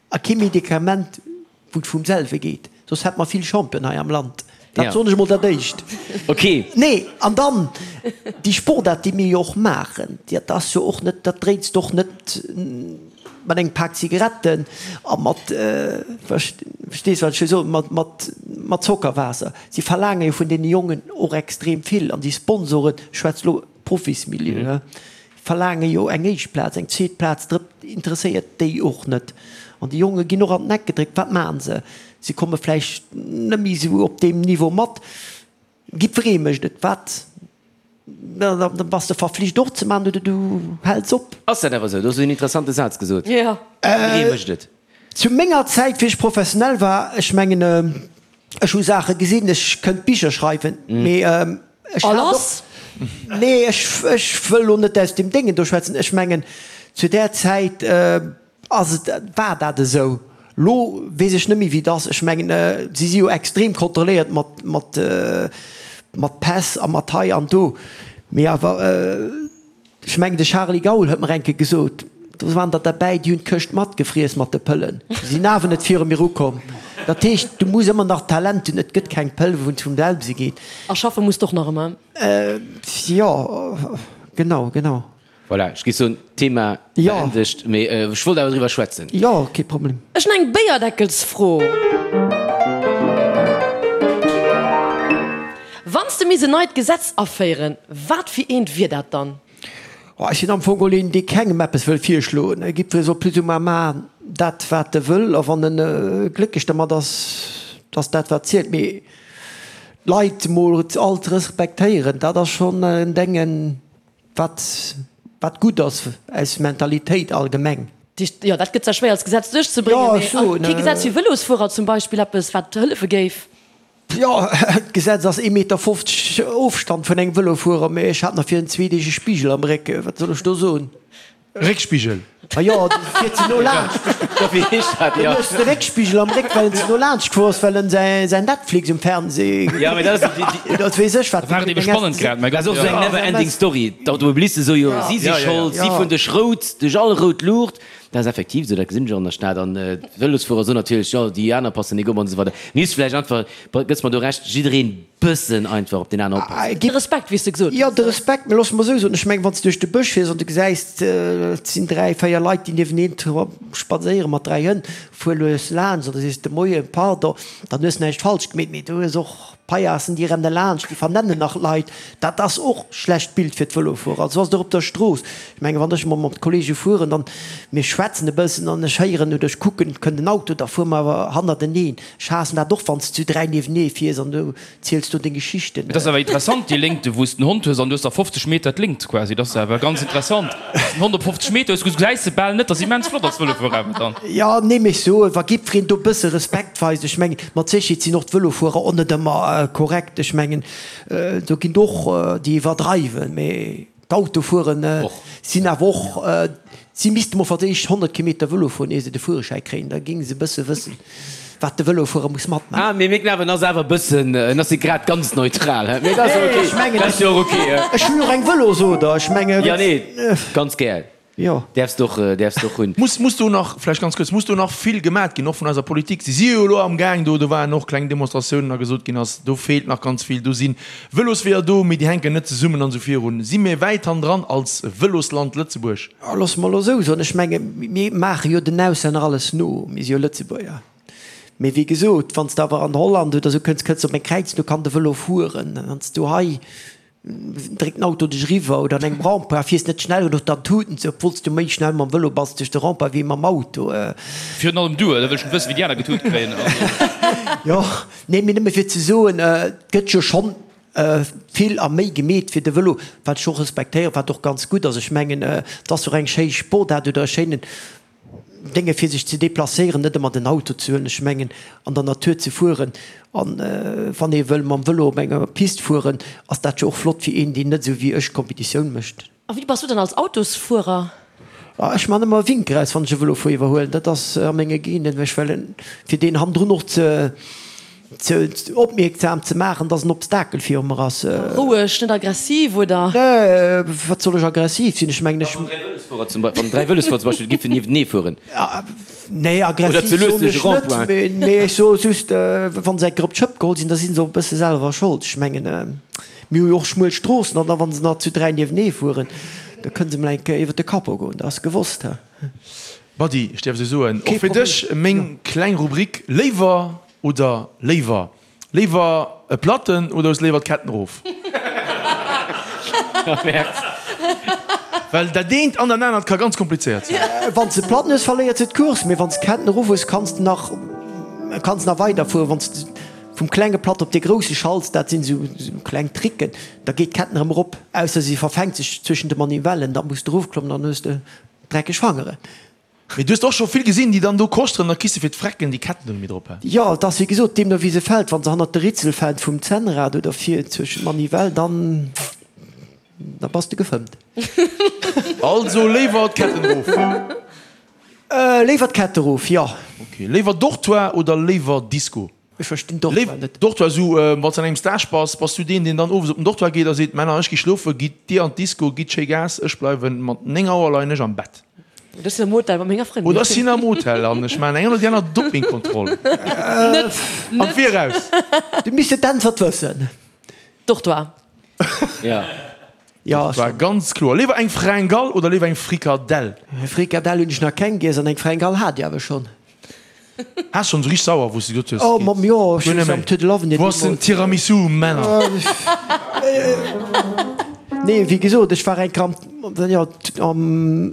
a kee Medikament, wou et vum selwe geet, soss hätte mer vill Champion hei am Land. Dat soen ech emol dat Éischt. Ok. Nee, an dann déi Sportaart, déi mir jo och maachen, dat ass jo och net, dat dréits de och net mat engem Pak Zigaretten a mat, verstees wat ech wëll soen, mat, mat, mat Zockerwaasser. Si verlaange jo vun deene Jongen och extrem vill an déi Sponsoren, ech schwätze lo Profismilieu, verlaange jo eng éischt Plaz, eng zweet Plaz, drëtt interesséiert déi och net. An déi Jonge ginn och an den Eck gedréckt. Wat maachen se? Si komme vläicht net méi esou op deem Niveau mat. Jiddweree mécht et. Wat? Da bass de verflicht och ze maachen oder du häls op. Ass dat awer esou? Do hues du en interessante Saz gesot. Jidderee mécht et. Zu menger Zäit, wéi ech professionell war, ech mengen, ech hu Saache gesinn, ech kënnt Bicher schreiwen, mee ech hat och, nee, ech, ech wëll elo net aus dem Déngen do schwätzen, ech mengen, zu där Zäit ass et, war dat esou. Lo weess ech net méi, wéi et ass. Ech mengen, si si jo extrem kontrolléiert mat, mat, mat Päss a mat hei an do, mee awer, Ech mengen de Charly Gaul huet mer eng Kéier gesot, do waren der derbäi, déi hunn d'Këscht matgefriess mat de Pëllen, déi sinn awer net viru mir ukomm. Dat heescht, du muss ëmmer nach Talent hunn, et gëtt keng Pëll wou et vum selwe geet. A schaffe muss d'och nach ëmmer. Jo, genau, genau. Voilà, ech géif soen, Thema beendegt, mee ech wollt awer driwwer schwätzen. Jo, kee Problem. Ech hunn eng Béierdeckelsfro. Wann s de misst en neit Gesetz aféieren, wat fir eent wier dat dann? Oh, ech sinn am Fong geholl een, dee kengem eppes wëll virschloen. Jiddweree soll plus ou moins maachen dat, wat e wëll, a wann en glécklech dermat ass, ass dat, wat zielt. Mee d'Leit emol all ze respektéieren, dat ass schonn en Déngen, wat, wat gutt ass aus Mentalitéit allgemeng. Jo, dat gëtt zwar schwéier als Gesetz duerchzebréngen, mee kee Gesetz fir Vëlosfuerer zum Beispill, eppes, wat hëllefe géif? Jo, d'Gesetz ass ee Meter 50 Ofstand vun engem Vëlofuerer, mee ech hat nach virun zwee Deeg e Spigel am Réck. Wat soll ech do soen? Réckspigel? Ma jo, du fiert ze no laanscht. Wéi heescht dat? Du hues de Réckspigel am Réck, well en ze no laanscht gefuer ass, well en säin Netflix um Fernseh Ja, mee dat ass déi, déi. Oder weess ech wat. Da war et ebe spannend grad, mäi Gott. Dat ass och esou eng never ending story. D'Automobiliste soe jo, si si schold, si fueren duerch rout, duerch all rout Luucht. Dat ass effektiv esou, dat gesinn ech och an der Stad. An d'Vëlosfuerer soen natierlech, jo, déi aner passen nik op an esou weider. Misst vläicht einfach, gëss mer do Recht, jiddereen bëssen einfach op deen aneren oppassen. De Respekt, wéi s de gesot hues. Jo, de Respekt, mä looss mer esou soen, ech mengen, wann s de duerch de Bësch fiers an du gesäis, et sinn dräi, véier Leit, déi nieweneen spadséiere mat dräi Hënn, fuer lues laanscht an da sees de Moien, pardon, dann hues näischt falsch gemeet, mee du hues och Paillassen, déi renne laanscht, déi vernennen nach Leit. Dat ass och schlecht Bild fir d'Vëlofuerer. Also ass et och op der Strooss. Ech mengen, wann ech emol mat Kollege fueren, dann, mir schwätzen e bëssen an ech héieren oder ech kucken, et kënnt en Auto, da fuere mer awer hannerteneen. Ech haassen dat och, wann s de zu 3 niewenee fiers an du ziels do deng Geschichten. Et ass awer interessant, déi Léngte wou s den Hond hues an du hues da 50 Meter d'Léngt quasi. Dat ass awer ganz interessant. Wann s den Hond op 50 Meter hues, gesäis de bal net. Dat ass immens flott als Vëlofuerer awer dann. Jo, nee, mee ech soen, wa jiddwereen do e bësse Respekt weist, ech mengen, mat Sécherheet sinn och d'Vëlofuerer och net ëmmer korrekt. Ech mengen, do ginn et och déi iwwerdreiwen, mee d'Autofueren sinn awer och, si misste mol fir d'éischt 100 Kilometer Vëlo fueren, ier se de Fuererschäi kréien, da géinge se e bësse wëssen, wat de Vëlofuerer muss matmaachen. Ah, mee mir glawen, en ass awer e bëssen, en ass net grad ganz neutral, hä? Mee dat ass jo ok, Ech mengen, dat ass jo och ok, hä? Ech hunn och eng Vëlosoder, ech mengen. Jo, nee, ganz gär. Jo. Däerfs de och, däerfs de och hunn. Muss, muss do nach, vläicht ganz kuerz, muss do nach vill gemat ginn, och vun eiser Politik? Si si jo elo amgaang do, do waren och kleng Demonstratiounen a gesot ginn ass, do feelt nach ganz vill, do si Vëlosweeër do, mee déi hänken net zesummen an esou virun. Si mir wäit hannendran als Vëlosland Lëtzebuerg? Loosse mer elo esou soen, ech menge mir maache jo den Auslänner alles no, mir si jo Lëtzebuerger. Mee wéi gesot, wann s de awer an Holland oder esou kënns, kënns de op eng Kräizung, do kann de Vëlo fueren. Wann s du hei Dréckt den Auto dech eriwwer oder an engem Rempart fiers net schnell genuch, dann tuten se, obwuel s du méi schnell mam Vëlo bass duerch de Rempart wéi mam Auto. Virun allem du, da wëll ech net wëssen, wéi déi aner getut kréien. Jo, nee, mee nëmme fir ze soen, et gëtt jo schonn vill a méi gemeet fir de Vëlo, wat ech och respektéieren, wat och ganz gutt ass. Ech mengen, et ass och eng schéi Sportaart oder e schéinen Dénge fir sech ze deplacéieren, net ëmmer den Auto ze huelen, ech mengen an der Natur ze fueren an wann ee wëll mam Vëlo op enger Pist fueren, ass dat jo och flott fir een deen net esou wéi ech Competitioun mécht. A wéi bass du dann als Autosfuerer? Ech man ëmmer e Winker aus wann ech e Vëlofuer iwwerhuelen, dat ass a menge Genen, ech well fir deen hannendrun och ze Ze opmierksam ze maachen, dass en Obstakel viru mer ass. Roueg, net aggressiv, oder? Nee, wat soll ech aggressiv sinn? Ech mengen, ech. Wann 3 Vëlosfuerer zum Beispill giffen niewentenee fueren. Nee, aggressiv soen ech net, mee ech soe just, wa se eng Kéier op d'Schëpp geholl sinn, da si se och e bësse selwer Schold. Ech mengen, mir hu jo och schmuel Stroossen an da wa se nach zu 3 niewenee fueren, da kënne se mol eng Kéier iwwer de Capot goen, dat ass gewosst. Buddy, ech däerf esou soen, och fir dech meng kleng Rubrik Léiwer oder léiwer. Léiwer e Platten oder hues léiwer d'Ketten erof? Well dat eent an dat anert ka ganz komplizéiert sinn. Wann s de Platten hues, verléiert se d'Course, mee wann s d'Ketten erof hues, kanns de nach kanns nach weiderfueren. Wann s de vum klenge Platt op dee grousse schalts, dat sinn esou kleng Tricken, da geet d'Ketten erëm erop, ausser si verfänkt sech zwëschen de Manivellen, da muss de erofklommen, dann hues de dreckeg Fangeren. Mee du hues och scho vill gesinn, déi dann do koschteren, da kriss de fir d'Frecken déi Ketten do net méi drop, he? Jo, et ass wéi gesot, deemno wéi se fält. Wa se hannert de Ritzel fält vum Zännrad oder vir zwëschen d'Manivell, dann da bass de gefëmmt. Also léiwer d'Ketten erof? Léiwer d'Kette erof, jo. Ok. Léiwer Dortoir oder léiwer Disco? Ech verstinn Dortoir net. Dortoir, esou wann s de an engem Stage bass, bass du deen, deen dann owes op den Dortoir geet a seet, Männer, ech gi schlofen, gitt dir an d'Disco, gitt schéi Gas, ech bleiwen mat 9 Auer leien ech am Bett. Oder ech sinn am Hotel mat menger Frëndin. Oder ech sinn am Hotel an ech maachen eng oder déi aner Dopingkontroll. Net, Am Viraus. Du misst d'Äntwert wëssen. Dortoir. Ja. Ja, Dortoir, ganz kloer. Léiwer eng Fringale oder léiwer eng Frikadell? Frikadell hunn ech nach keng giess an eng Fringale hat ech awer schonn. Has schon sou richteg sauer wous de gesot hues, Oh Mamm, jo, ech hunn am Tour de l'Avenir Wou ass den Tiramisu, Männer? Nee, wéi gesot, ech war eng Kéier am, jo, am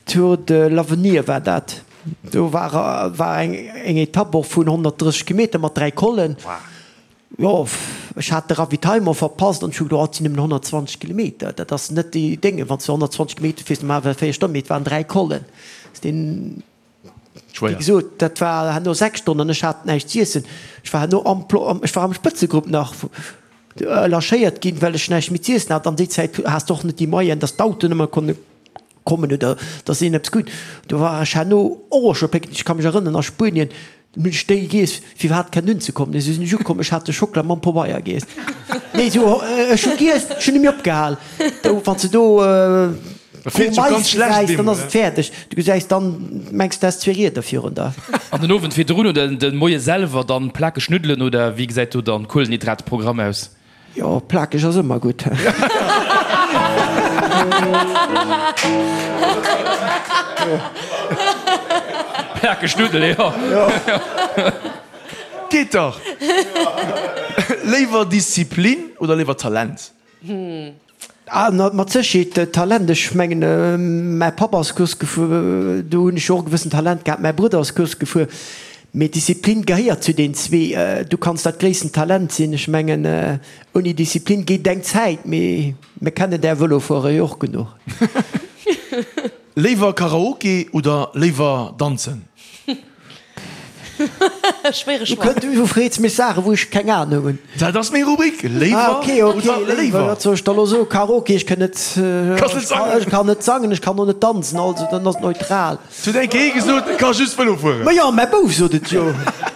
Tour de l'Avenir war dat. Do war, war eng, eng Etapp och vun 130 Kilometer mat 3 Collen. Jo, ech hat de Ravitaillement verpasst an ech hu geduecht, oh, et sinn nëmmen 120 Kilometer, dat ass net déi Dénge, wann s de 120 Kilometer fiers, normalerweis 4 Stonnen, mee et waren 3 Collen. Deen. Wéi gesot, dat war herno 6 Stonnen an ech hat näischt z'iessen. Ech war herno am, ech war am Spëtzegrupp nach lâchéiert ginn, well ech näischt méi z'iessen hat. An déi Zäit has de och net déi Moyenen, dass d'Autoen ëmmer konne kommen oder dass een eppes krut. Do war ech herno och scho pécklech. Ech ka mech erënneren, a Spuenien hunn ech déi giess, fir iwwerhaapt kennen unzekommen. Esou sinn ech ukomm, ech hat de Schockela mam Pobeier giess. Nee, esou, ech hu giess, ech hunn net méi opgehal. Do, wann s de do Mais gesäis, dann ass et fäerdeg. Du gesäis dann, mengs du häss zwee Rieder virun der. An den Owend virdrun oder den Moie selwer dann plakeg Nuddelen oder wéi gesäit do dann Kuelenhydratprogramm aus? Jo, plakeg ass ëmmer gutt. Plakeg Nuddele, jo. Geet dach! Léiwer Disziplin oder léiwer Talent? Ah, mat Sécherheet Talent. Ech mengen, mäi Papp ass Course gefuer, do hunn ech jo och e gewëssent Talent gehat. Mäi Brudder ass Course gefuer. Mee Disziplin gehéiert zu den zwee. Du kanns dat gréissten Talent sinn, ech mengen, ouni Disziplin geet eng Zäit, mee mir kennen där Vëlofuerer jo och genuch. Léiwer Karaoke oder léiwer danzen? Schwéiere Choix. Du freets mech Saachen, wou ech keng Ahnung hunn. Dat ass meng Rubrik, Léiwer oder léiwer. Wat soll ech da lo soen? Karaoke, ech kann net, ech kann net sangen, ech kann och net danzen, also dann ass et neutral. Et huet eng Kéier ee gesot, e ka just Vëlo fueren. Ma jo, mäi Bouf sot et jo.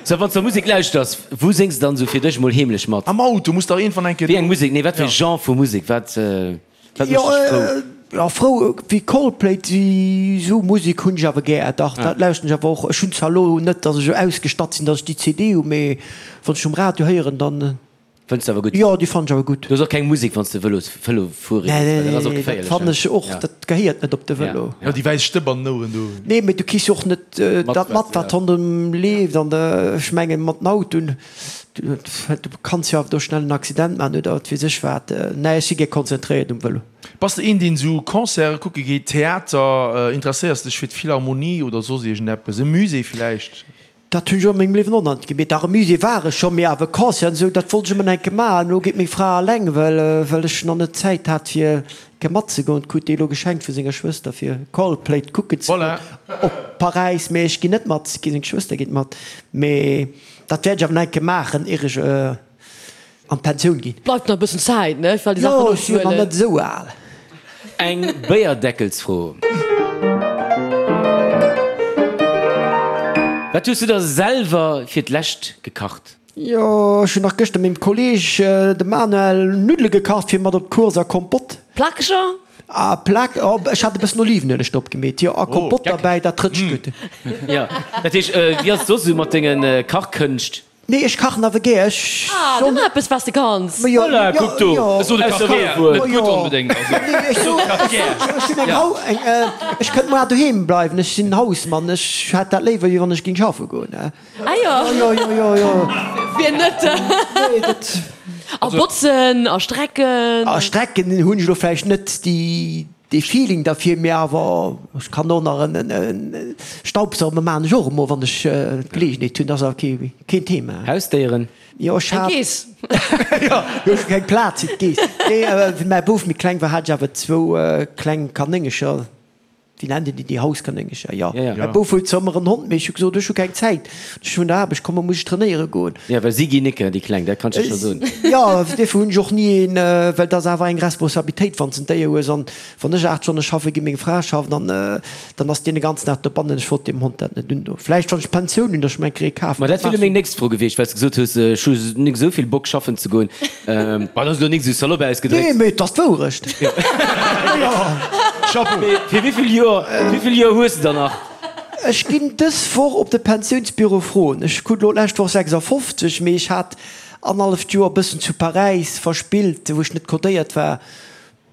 Sou, wann s de Musek lauschters, wou séngs de dann esou fir dech mol heemlech mat? Am Auto muss dach iergendwann eng Kéier. Wéi eng Musek? Nee, wat fir e Genre vu Musek? Wat, wat mécht dech frou? Jo, frou wéi Coldplay, déi esou Musek hunn ech awer gär. Dach, dat lauschteren ech awer och. Ech hunn zwar elo net, datt ech esou ausgestatt sinn, datt ech déi CD hu, mee wann ech um Radio héieren, dann. Fënns de awer gutt? Jo, déi fannen ech awer gutt. Du hues och keng Musek, wann s de Vëlos, Vëlo fuere gees, well dat ass och geféierlech. Dat fannen ech och, dat gehéiert net op de Vëlo. Jo, déi wäiss Stëpp an den Oueren do. Nee, mee du kriss jo och net dat mat, wat ronderëm leeft. An ech mengen, mat den Autoen, du kanns jo awer do schnell en Accident maachen oder wat weess ech wat. Nee, ech si gär konzentréiert um Vëlo. Bass de een, deen esou Concerte kucke geet, Theater, interesséiers dech fir d'Philharmonie oder soss iergendeppes, e Musée villäicht? Dat hunn ech och a mengem Liewen och nach net gemeet. Dach, e Musée war ech scho, mee awer Concert an esou, dat wollt ech ëmmer nach eng Kéier maachen. Elo geet meng Fra eleng, well, well ech nach net d'Zäit hat, fir eng Kéier matzegoen. Krut déi elo geschenkt vu senger Schwëster, fir Coldplay kucken ze goen op Paräis. Mee ech ginn net mat, seng Schwëster geet mat. Mee dat wäert ech awer nach eng Kéier maachen, ier ech. An d'Pensioun ginn. Bleift nach e bëssen Zäit, ne? Well déi Saachen Jo, ech sinn jo nach net esou al. Eng Béierdeckelsfro. Wat hues du da selwer fir d'lescht gekacht? Jo, ech hunn nach gëschter mengem Kolleeg, dem Manuel, Nuddele gekacht fir mat op d'Course a Kompott. Plakeger? A Plak, oh, ech hat e bëssen Olivenueleg drop gemeet, jo, a Kompott derbäi, dat rëtscht gutt. Jo, dat heescht, wéi ass et soss esou mat denge Kachkënscht? Nee, ech kachen awer gär, ech. Ah, do nach eppes, wat s de kanns. Voilà, kuck do, Ech sot, e kacht gär, net gutt onbedéngt, also. Nee, ech sot, ech hunn eng Hau, eng, ech kënnt moar doheem bleiwen, ech sinn Hausmann, ech hätt dat léiwer, wéi wann ech géing schaffe goen. Ah jo. Jo, jo, jo, jo. Wien net? Nee, dat. A botzen a strecken. A strecken hunn ech elo vläicht net déi, dee Feeling derfir, mee awer ech kann och nach en, en Staubsaugen maachen ech och emol, wann ech d'Geleegenheet hunn. Dat ass awer kee, keen Thema. Hausdéieren? Jo, ech Eng hat. Geess. Jo, ech hu keng Plaz fir d'Geess. Nee, wéi mäi Bouf méi kleng war, hat ech awer zwou kleng Kanéngercher. Wéi nennt een déi, déi Hauskanéngercher? Jo. Mäi Bouf huet zwar ëmmer en Hond, mee ech hu gesot, ech hu keng Zäit, ech vun der Aarbecht kommen, muss ech trainéiere goen. Jo, well si ginn nicke, déi Kleng, dat kann ech der scho soen. Jo, duerfir hunn ech och ni een, well dat ass awer eng Responsabilitéit, wann s de en Déier hues. An wann ech 8 Stonne schaffen ginn, meng Fra schafft, an dann ass deen de ganzen Dag dobannen. Ech wollt deem Hond dat net undoen. Vläicht, wann ech d'Pensioun hunn, datt ech mer eng Kéier ee kafen. Ma dat wier elo meng nächst Fro gewiescht, well s de gesot hues, ech hu nik esou vill Bock schaffen ze goen. Ma dat ass elo nik esou salopp ausgedréckt. Nee, mee et ass d'Wourecht. Chapeau. Mee fir wéivill Joer, wéivill Joer hues de der nach? Ech ginn dës Woch op de Pensiounsbüro froen. Ech krut elo d'lescht Woch 56, mee ech hat annerhalleft Joer e bëssen zu Paräis verspillt, wou ech net codéiert war.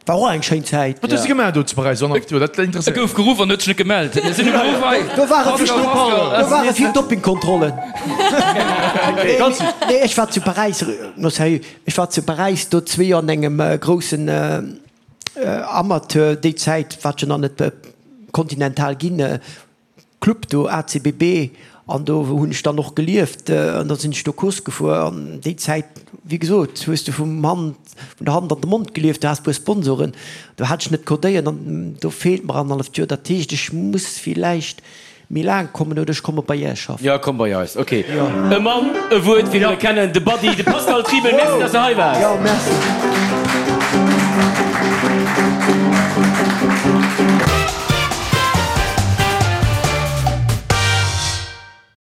War och eng schéin Zäit. Wat hues de gemaach do zu Paräis? Dat E interesséiert gouf geruff an huet sech net gemellt. Mir sinn um Beruff hei. Do ware vill, do ware vill Doppingkontrollen. Nee, ech war zu Paräis, no sérieux, ech war zu Paräis do zwee Joer an engem groussen Amateur, déi Zäit war et jo nach net kontinental ginn, Club do, ACBB, an do hunn ech dann och gelieft an da sinn ech do Course gefuer an déi Zäit, wéi gesot, hues de vum Hand, vun der Hand an de Mond gelieft, du has puer Sponsoren, do hat ech net codéiert an do feelt mer annerhalleft Joer, dat heescht ech muss villäicht méi laang kommen oder ech komme bei Iech schaffen. Jo, komm bei eis, ok. E Mann, e Wuert, wéi mir e kennen, de Buddy, de Pascal Triebel. Merci, dass de hei waars. Jo, merci.